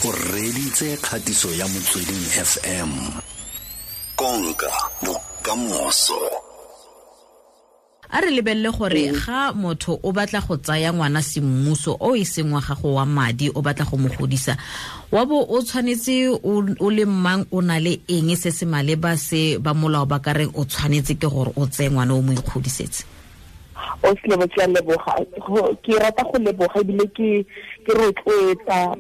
O reditse kgatiso ya Motsweding FM. Konka bokamoso. A re lebelele gore ga motho o batla go tsaya ngwana semmuso o e seng wa gago wa madi, o batla go mo godisa, wa bo o tshwanetse o le mang, o na le eng se se maleba se ba molao ba ka reng o tshwanetse ke gore o tseye ngwana o mo ikgodisetse? O selebo, ke a leboga. Ke rata go leboga ebile ke rotloetsa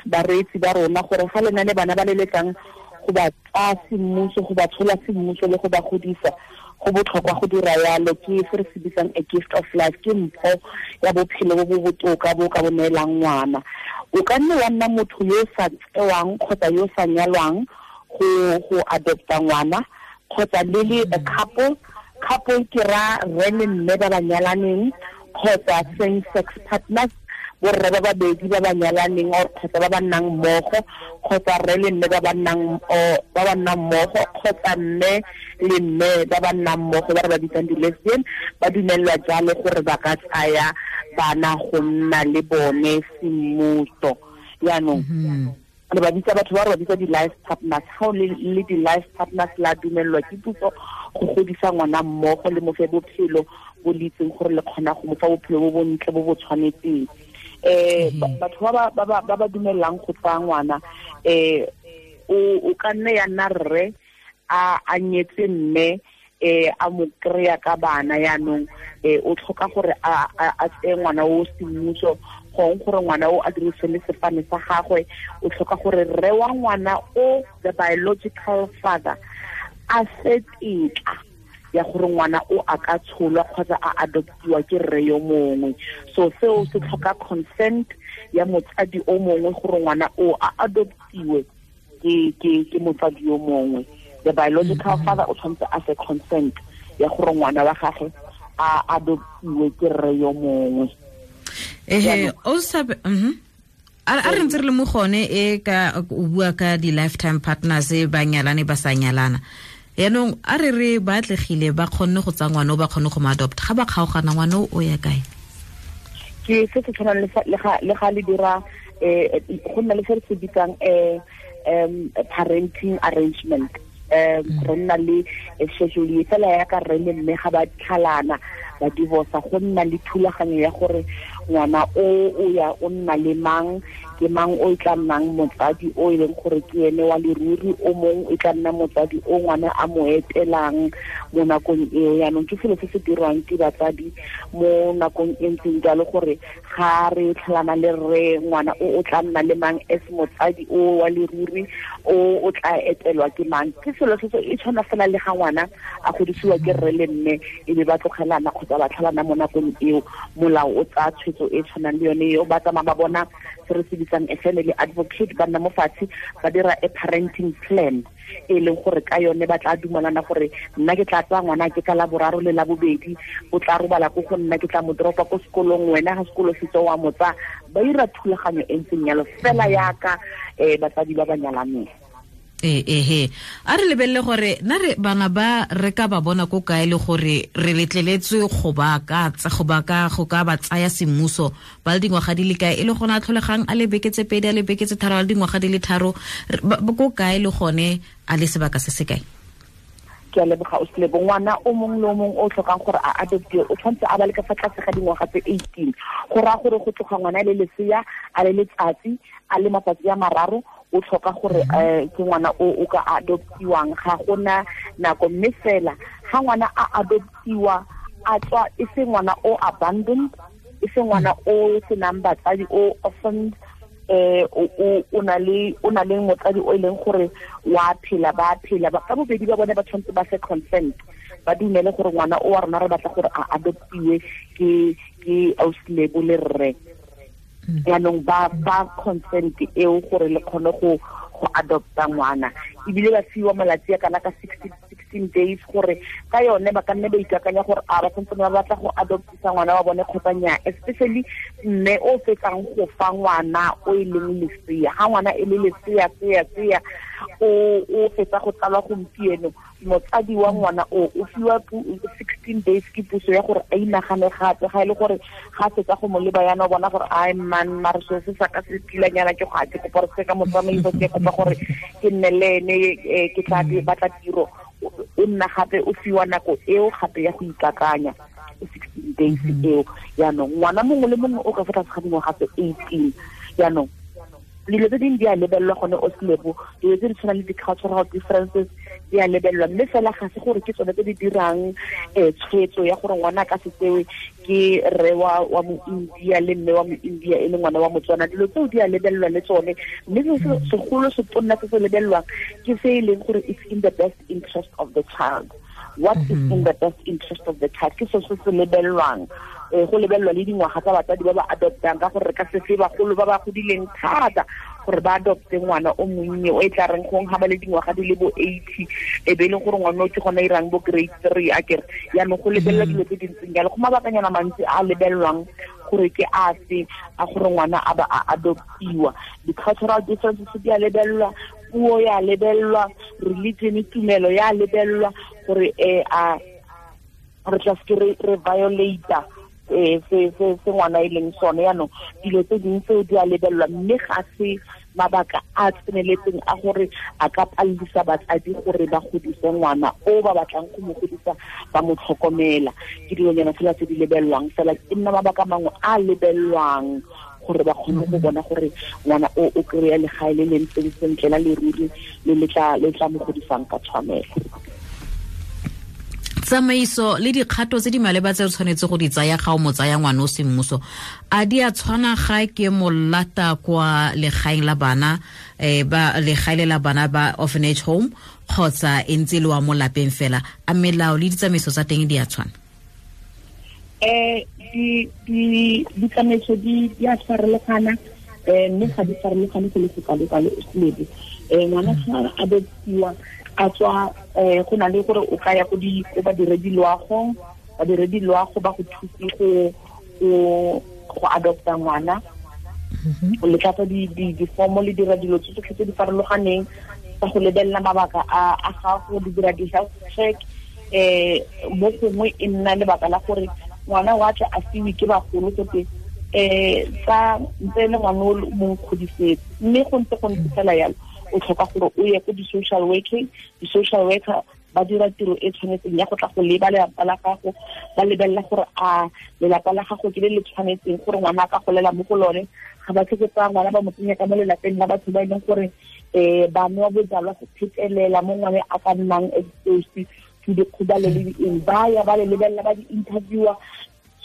bareetsi ba rona gore ga le na le bana ba le lekang go ba tsaya semmuso, go ba tshola semmuso le go ba godisa, go botlhokwa go dira yalo. Ke se re se bitsang a gift of life, ke mpho ya bophelo bo bo botoka bo ka bo neelang ngwana. O ka nne wa nna motho yo o sa tsewang kgotsa yo o sa nyalwang go adopta ngwana, kgotsa le le a couple. Couple ke ra rre le mme ba ba nyalaneng, kgotsa same sex partners, borre ba babedi ba ba nyalaneng or kgotsa ba ba nnang mmogo, kgotsa rre le mme ba ba nnang mmogo, kgotsa mme le mme ba ba nnang mmogo ba re ba bitsang di-lesbian. Ba dumelelwa jalo gore ba ka tsaya bana go nna le bone semmuso. Yaanong re ba bitsa batho ba re ba bitsa di-life partners. Ga o le di-life partners, la dumelelwa ke puso go godisa ngwana mmogo le mo fe bophelo bo le itseng gore le kgona go mo fa bophelo bo bontle bo bo tshwanetseng. Batho ba ba dumelelang go tsaya ngwana, o ka nne ya nna rre a nyetse mme a mo kry-a ka bana. Yaanong o tlhoka gore a tseye ngwana o semmuso, gong gore ngwana o a dirise le sefane sa gagwe. O tlhoka gore rre wa ngwana o, the biological father, a se tetla ya gore ngwana o a ka tsholwa kgotsa a adoptiwa ke rre yo mongwe. So seo se tlhoka consent ya motsadi o mongwe gore ngwana o a adoptiwe ke motsadi yo mongwe. The biological father o tshwanetse a se consent ya gore ngwana wa gagwe a adoptiwe ke rre yo mongwe. Ehe, o sa a re ntse re le mo gone e ka o bua ka di-lifetime partners ba nyalane ba sa nyalana. Yaanong a re re ba atlegile, ba kgonne go tsaya ngwana o, ba kgonne go mo adopt, ga ba kgaogana, ngwana o ya kae? Ke se se tshwanang le ga le dira go nna le se re se bitsang parenting arrangement. Re nna le schedule fela ya ka rre le mme ga ba tlhalana, ba divorce, go nna le thulaganyo ya gore ngwana o ya o nna le mang, ke mang o e tla nnang motsadi o e leng gore ke ene wa leruri, o mongwe e tla nna motsadi o ngwana a mo etelang mo nakong eo. Yaanong ke selo se se dirwang ke batsadi mo nakong e ntseng jalo, gore ga re tlhalana le rre, ngwana o tla nna le mang as motsadi o wa leruri, o tla etelwa ke mang. Ke selo se e tshwana fela le ga ngwana a godisiwa ke rre le mme e be ba tlogelana kgotsa ba tlhalana. Mo nakong eo molao o tsaya tshwetso e tshwanang le yone eo. Ba tsamaya ba bona se re se bitsang a family advocate, ba nna mo fatshe ba dira a parenting plan e leng gore ka yone ba tla dumalana gore nna ke tla tsaya ngwana ke ka la boraro le la bobedi, o tla robala ko go nna, ke tla mo dropa ko sekolong, wena ga sekolo se tswa wa mo tsaya. Ba dira thulaganyo e ntseng yalo fela yaka batsadi ba ba nyalaneng. Ee, ehe, a re lebelele gore na re bana ba re ka ba bona ko kae, le gore re letleletswe go ka ba tsaya semmuso ba le dingwaga di le kae, e le gone a tlholegang a le beke tse 2, a le beke tse 3, a le dingwaga di le 3, ko kae, le gone a le sebaka se se kae? Ke a leboga, o selebo. Ngwana o mongwe le o mongwe o tlhokang gore a adoptiwe o tshwanetse a ba le ka fa tlase ga dingwaga tse 18. Go raya gore go tloga ngwana a le lesea, a le letsatsi, a le matsatsi a 3, o tlhoka gore ke ngwana o ka adoptiwang. Ga gona nako, mme fela ga ngwana a adoptiwa a tswa e se ngwana o abandoned, e se ngwana o senang batsadi, o orphaned, o na le motsadi o e leng gore wa phela, ba phela ba ka bobedi ba bone, ba tshwanetse ba se consent, ba dumele gore ngwana o wa rona re batla gore a adoptiwe ke ausilebo le rre. Yaanong ba fa consent eo gore le kgone go adopta ngwana, ebile ba fiwa malatsi a kana ka 60 16 days gore ka yone ba ka nne ba ikakanya gore a ba santse ba batla go adoptisa ngwana wa bone kgotsa nnyaa, especially mme o fetsang go fa ngwana o e leng lesea. Ga ngwana e le lesea sea o fetsa go tsalwa gompieno, motsadi wa ngwana o fiwa 16 days ke puso ya gore a inagane gape. Ga e le gore ga fetsa go mo leba yana o bona gore ai man mare seo se sa ka se tilanyana ke go a ke kopa gore se ka motsamaiso, ke kopa gore ke nne le ene, ke tla batla tiro. O nna gape o fiwa nako eo gape ya go ikakanya 16 days eo. Yaanong ngwana mongwe le mongwe o ka fa tlase ga dingwaga tse 18. Yaanong dilo tse dingwe di a lebelelwa gone o selebo, dilo tse di tshwanang le di-cultural differences di a lebelelwa, mme fela ga se gore ke tsone tse di dirang tshwetso ya gore ngwana a ka se tsewe ke rre wa mo-India le mme wa mo-India e le ngwana wa Motswana. Dilo tseo di a lebelelwa le tsone, mme se segolo se tonna se se lebelelwang ke se e leng gore it's in the best interest of the child. What is in the best interest of the child ke se se lebelelwang. Go lebelelwa le dingwaga tsa batsadi ba ba adoptang, ka gore re ka se fe bagolo ba ba godileng thata gore ba adopte ngwana o monnye o e tla reng gong ga ba le dingwaga di le bo 80 e be e leng gore ngwana o ke gona irang bo grade 3 a kere. Yaanong go lebelela dilo tse dintseng jalo, go mabakanyana mantsi a lebelelwang gore ke afe a gore ngwana a ba a adoptiwa. Di-cultural differences di a lebelelwa, puo ya lebelelwa, religion tumelo ya lebelelwa gore a re tla se re violate se ngwana e leng sone. Yaanong dilo tse dingwe tseo di a lebelelwa, mme ga se mabaka a tseneletseng a gore a ka palelisa batsadi gore ba godise ngwana o ba batlang go mo godisa ba mo tlhokomela. Ke dilonyana fela tse di lebelelwang fela, e nna mabaka mangwe a lebelelwang gore ba kgone go bona gore ngwana o o kry-a legae le le ntseng sentle la leruri le le tla mo godisang ka tshwanelo. Tsamaiso le dikgato tse di maleba tse o tshwanetse go di tsaya ga o mo tsaya ngwana o semmuso a di a tshwana ga ke mo lata kwa legaeng la bana, ba legae la bana ba orphanage home, kgotsa e ntse le wa mo lapeng fela? A melao le ditsamaiso tsa teng di a tshwana? Ditsamaiso di a farologana, mme ga di farologane go le go kalo-kalo o selebe. Ngwana ga a adoptiwa a tswa, go na le gore o ka ya ko badiredi loago, badiredi loago ba go thuse go adopta ngwana. O le tlatsa di-form le dira dilo tse tsotlhe tse di farologaneng tsa go lebelela mabaka a gago, di dira di-health check. Mo gongwe e nna lebaka la gore ngwana wa tla a fiwe ke bagolo gote tsa ntse le ngwana o mo nkgodisetse, mme go ntse fela yalo o tlhoka gore o ye ko di-social working. Di-social worker ba dira tiro e tshwanetseng ya go tla go leba lelapa la gago, ba lebelela gore a lelapa la gago ke le le tshwanetseng gore ngwana a ka golela mo go lone. Ga ba tlhoke tsaya ngwana ba mo tsenya ka mo lelapeng la batho ba e leng gore ba nwa bojalwa go phetelela mo ngwane a ka nnang exposed to dikgobalo le eng. Ba ya ba le lebelela, ba di-interviewer.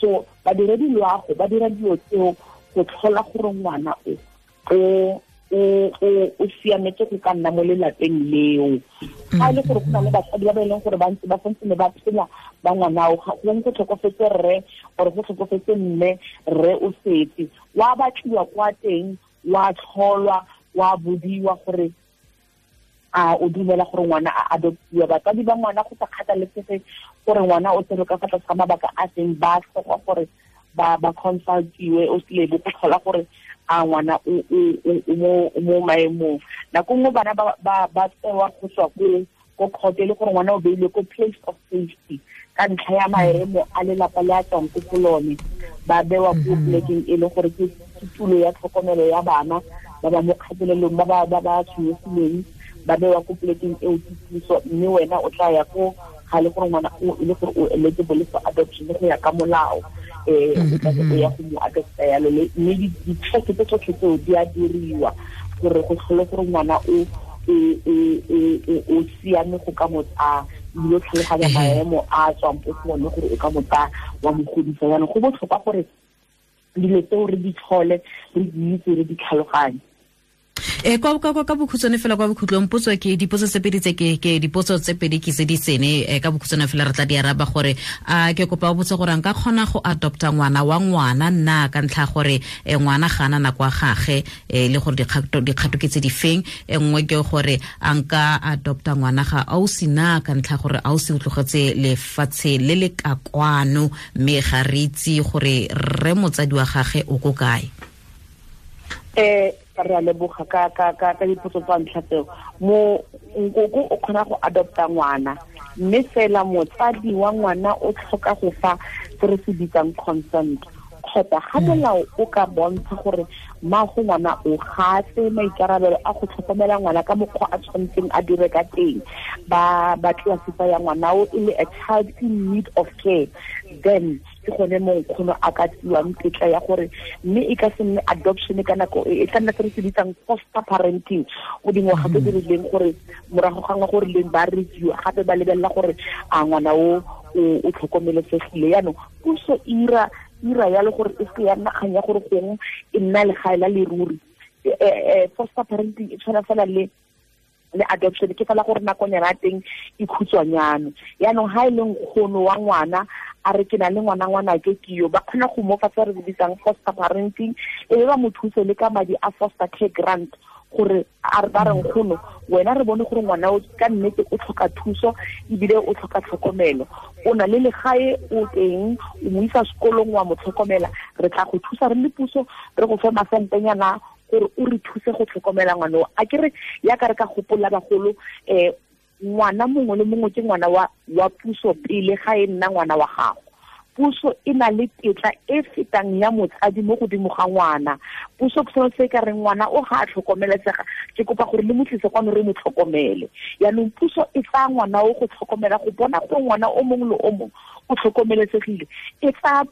So badiredi loago ba dira dilo tseo go tlhola gore ngwana o siametse go ka nna mo lelapeng leo. Ga e le gore go na le batsadi ba ba e leng gore ba ntse ba santse ne ba phela ba ngwana o, gongwe go tlhokofetse rre or go tlhokofetse mme, rre o setse wa batliwa kwa teng, wa tlholwa, wa bodiwa gore a o dumela gore ngwana a adoptiwa. Batsadi ba ngwana go sa kgathalesege gore ngwana o tsere ka fa tlase ga mabaka a seng, ba tlhoka gore ba consultiwe o selebo go tlhola gore a ngwana o mo maemong. Nako nngwe bana ba tsewa go tswa ko court, e le gore ngwana o beilwe ko place of safety ka ntlha ya maemo a lelapa le a tswang ko go lone, ba bewa ko plekeng e le gore ke tulo ya tlhokomelo ya bana ba ba mo kgatelelong, ba ba tshwenyegileng, ba bewa ko plekeng eo ke puso. Mme wena o tla ya ko ga le gore ngwana o e le gore o eligible for adoption go ya ka molao, o tla o ya go mo adopta yalo. Mme di-check tse tsotlhe tseo di a diriwa gore go tlhole gore ngwana o siame go ka mo tsaya, ebile o tlhaloganya maemo a tswang ko go one gore o ka mo tsaya wa mo godisa. Jaanong go botlhokwa gore dilo tseo re di tlhole, re di itse, re di tlhaloganye. Kwa ka bokhutswane fela kwa bokhutlong, potso ke dipotso tse pedi tse ke dipotso tse pedi ke tse di sene, ka bokhutswane fela re tla di araba gore a ke kopa o botse gore nka kgona go adopta ngwana wa ngwana nna ka ntlha gore ngwana ga ana nako ya gage, le gore dikgato ke tse di feng. E nngwe ke gore a nka adopta ngwana ga ausi na ka ntlha gore ausi o tlogetse lefatshe le le ka kwano, mme ga re itse gore rre motsadi wa gage o ko kae. Re a leboga ka dipotso tsa ntlha tseo. Mo nkoko o kgona go adopta ngwana, mme fela motsadi wa ngwana o tlhoka go fa se re se bitsang consent, kgotsa ga molao o ka bontsha gore mmago ngwana o gatse maikarabelo a go tlhokomela ngwana ka mokgwa a tshwanetseng a dire ka teng, ba classify ya ngwana o e le a child in need of care, then ke gone mo nkgono a ka tsiwang tetla ya gore mme e ka se nne adoption ka nako e tla nna se re se bitsang foster parenting, o dingwaga tse di rileng gore morago ga ngwa gore leng ba review gape ba lebelela gore a ngwana o o tlhokomelesegile. Yaanong puso ira ya le gore e se ya nna kgang ya gore gongwe e nna legae la leruri. Foster parenting e tshwana fela le adoption, ke fela gore nakonyana ya teng e khutshwanyane. Yaanong ha e le nkgono wa ngwana a re ke na le ngwana ke yo, ba kgona go mo fa se re bitsang foster parenting, e be ba mo thuse le ka madi a foster care grant, gore a re ba re nkgono wena re bone gore ngwana o ka nnete o tlhoka thuso ebile o tlhoka tlhokomelo, o na le legae o teng, o mo isa sekolong wa mo tlhokomela, re tla go thusa re le puso, re go fe masentenyana gore o re thuse go tlhokomela ngwana o. A ke re ya ka re ka gopola bagolo, ngwana mongwe le mongwe ke ngwana wa puso pele ga e nna ngwana wa gago. Puso e na le tetla e fetang ya motsadi mo godimo ga ngwana. Puso ke sone se ka reng ngwana o ga a tlhokomelesega, ke kopa gore le mo tlise kwano re mo tlhokomele. Yaanong puso e tsaya ngwana o go tlhokomela, go bona gore ngwana o mongwe le o mongwe o tlhokomelesegile, e tsaya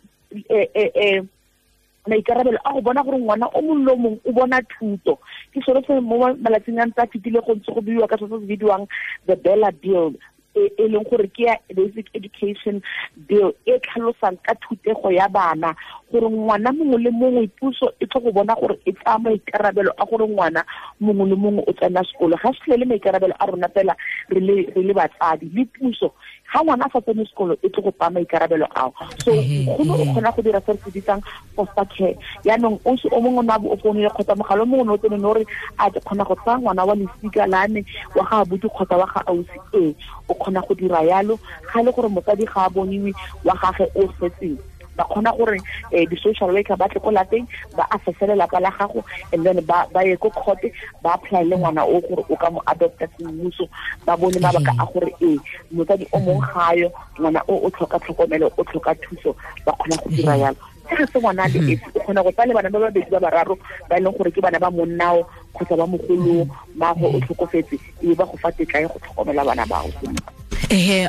maikarabelo a go bona gore ngwana o mongwe le o mongwe o bona thuto. Ke sone se mo malatsing a ntse a fetile go ntse go buiwa ka se se bidiwang the Bella Bill, e leng gore ke ya Basic Education Bill e tlhalosang ka thutego ya bana, gore ngwana mongwe le mongwe puso e tlo go bona gore e tsaya maikarabelo a gore ngwana mongwe le mongwe o tsena sekolo. Ga se le maikarabelo a rona fela re le batsadi le puso, ga ngwana a sa tsene sekolo e tlo go tsaya maikarabelo ao. So nkgono o kgona go dira se re se bitsang foster care. Yaanong o mongwe o ne a bo o founile kgotsa mogala o mongwe o ne o tsene o re a ke kgona go tsaya ngwana wa lesika la me wa ga abuti kgotsa wa ga ausi, ee o kgona go dira yalo. Ga e le gore motsadi ga a boniwe wa gage o setseng, ba kgona gore di-social worker ba tle ko lapeng ba assesse lelapa la gago, and then ba ye ko court ba apply le ngwana o gore o ka mo adopta semmuso, ba bone mabaka a gore ee motsadi o mongwe ga yo, ngwana o tlhoka tlhokomelo, o tlhoka thuso, ba kgona go dira yalo. Ga se ngwana le esi, o kgona go tsaya le bana ba babedi ba bararo ba e leng gore ke bana ba monnao kgotsa ba mogolo, mmago o tlhokofetse, e ba go fa tetla ya go tlhokomela bana bao.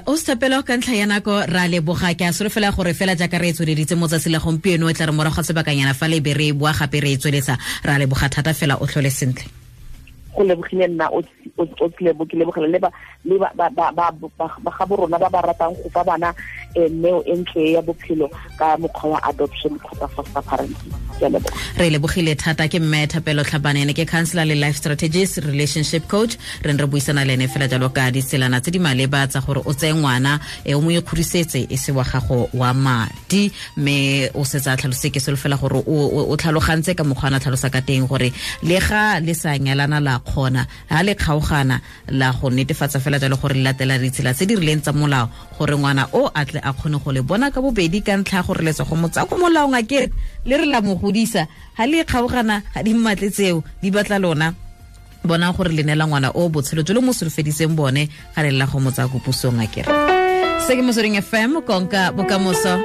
O Thapelo, ka ntlha ya nako ra leboga. Ke a solofela gore fela jaaka re e tsweleditse mo tsatsi la gompieno, e tla re morago ga sebakanyana fa le be re boa gape re e tsweletsa. Ra leboga thata fela, o tlhole sentle. Go lebogile nna o ke lebogela le ba ga borona ba ba ratang go fa bana neo e ntle ya bophelo ka mokgwa wa adoption kgotsa foster parenting. Re lebogile thata. Ke mme Thapelo Tlhabane, ene ke counselor le life strategist, relationship coach. Re ne re buisana le ene fela jalo ka ditselana tse di maleba tsa gore o tseye ngwana o mo ikgodisetse e se wa gago wa madi, mme o setse a tlhalose. Ke solofela gore o tlhalogantse ka mokgwa a tlhalosa ka teng gore le ga le sa nyalana la kgona, ha le kgaogana la go netefatsa fela jalo gore le latela ditsela tse di rileng tsa molao gore ngwana o a tle a kgone go le bona ka bobedi, ka ntlha ya gore le tswa go mo tsaya ko molaong a kere le re la mo godisa. Ha le kgaogana ga di mmatle tseo, di batla lona bona gore le neela ngwana o botshelo jo le mo solofeditseng bone ga le lela go mo tsaya ko pusong a kere. Se ke Motsweding FM, konka bokamoso.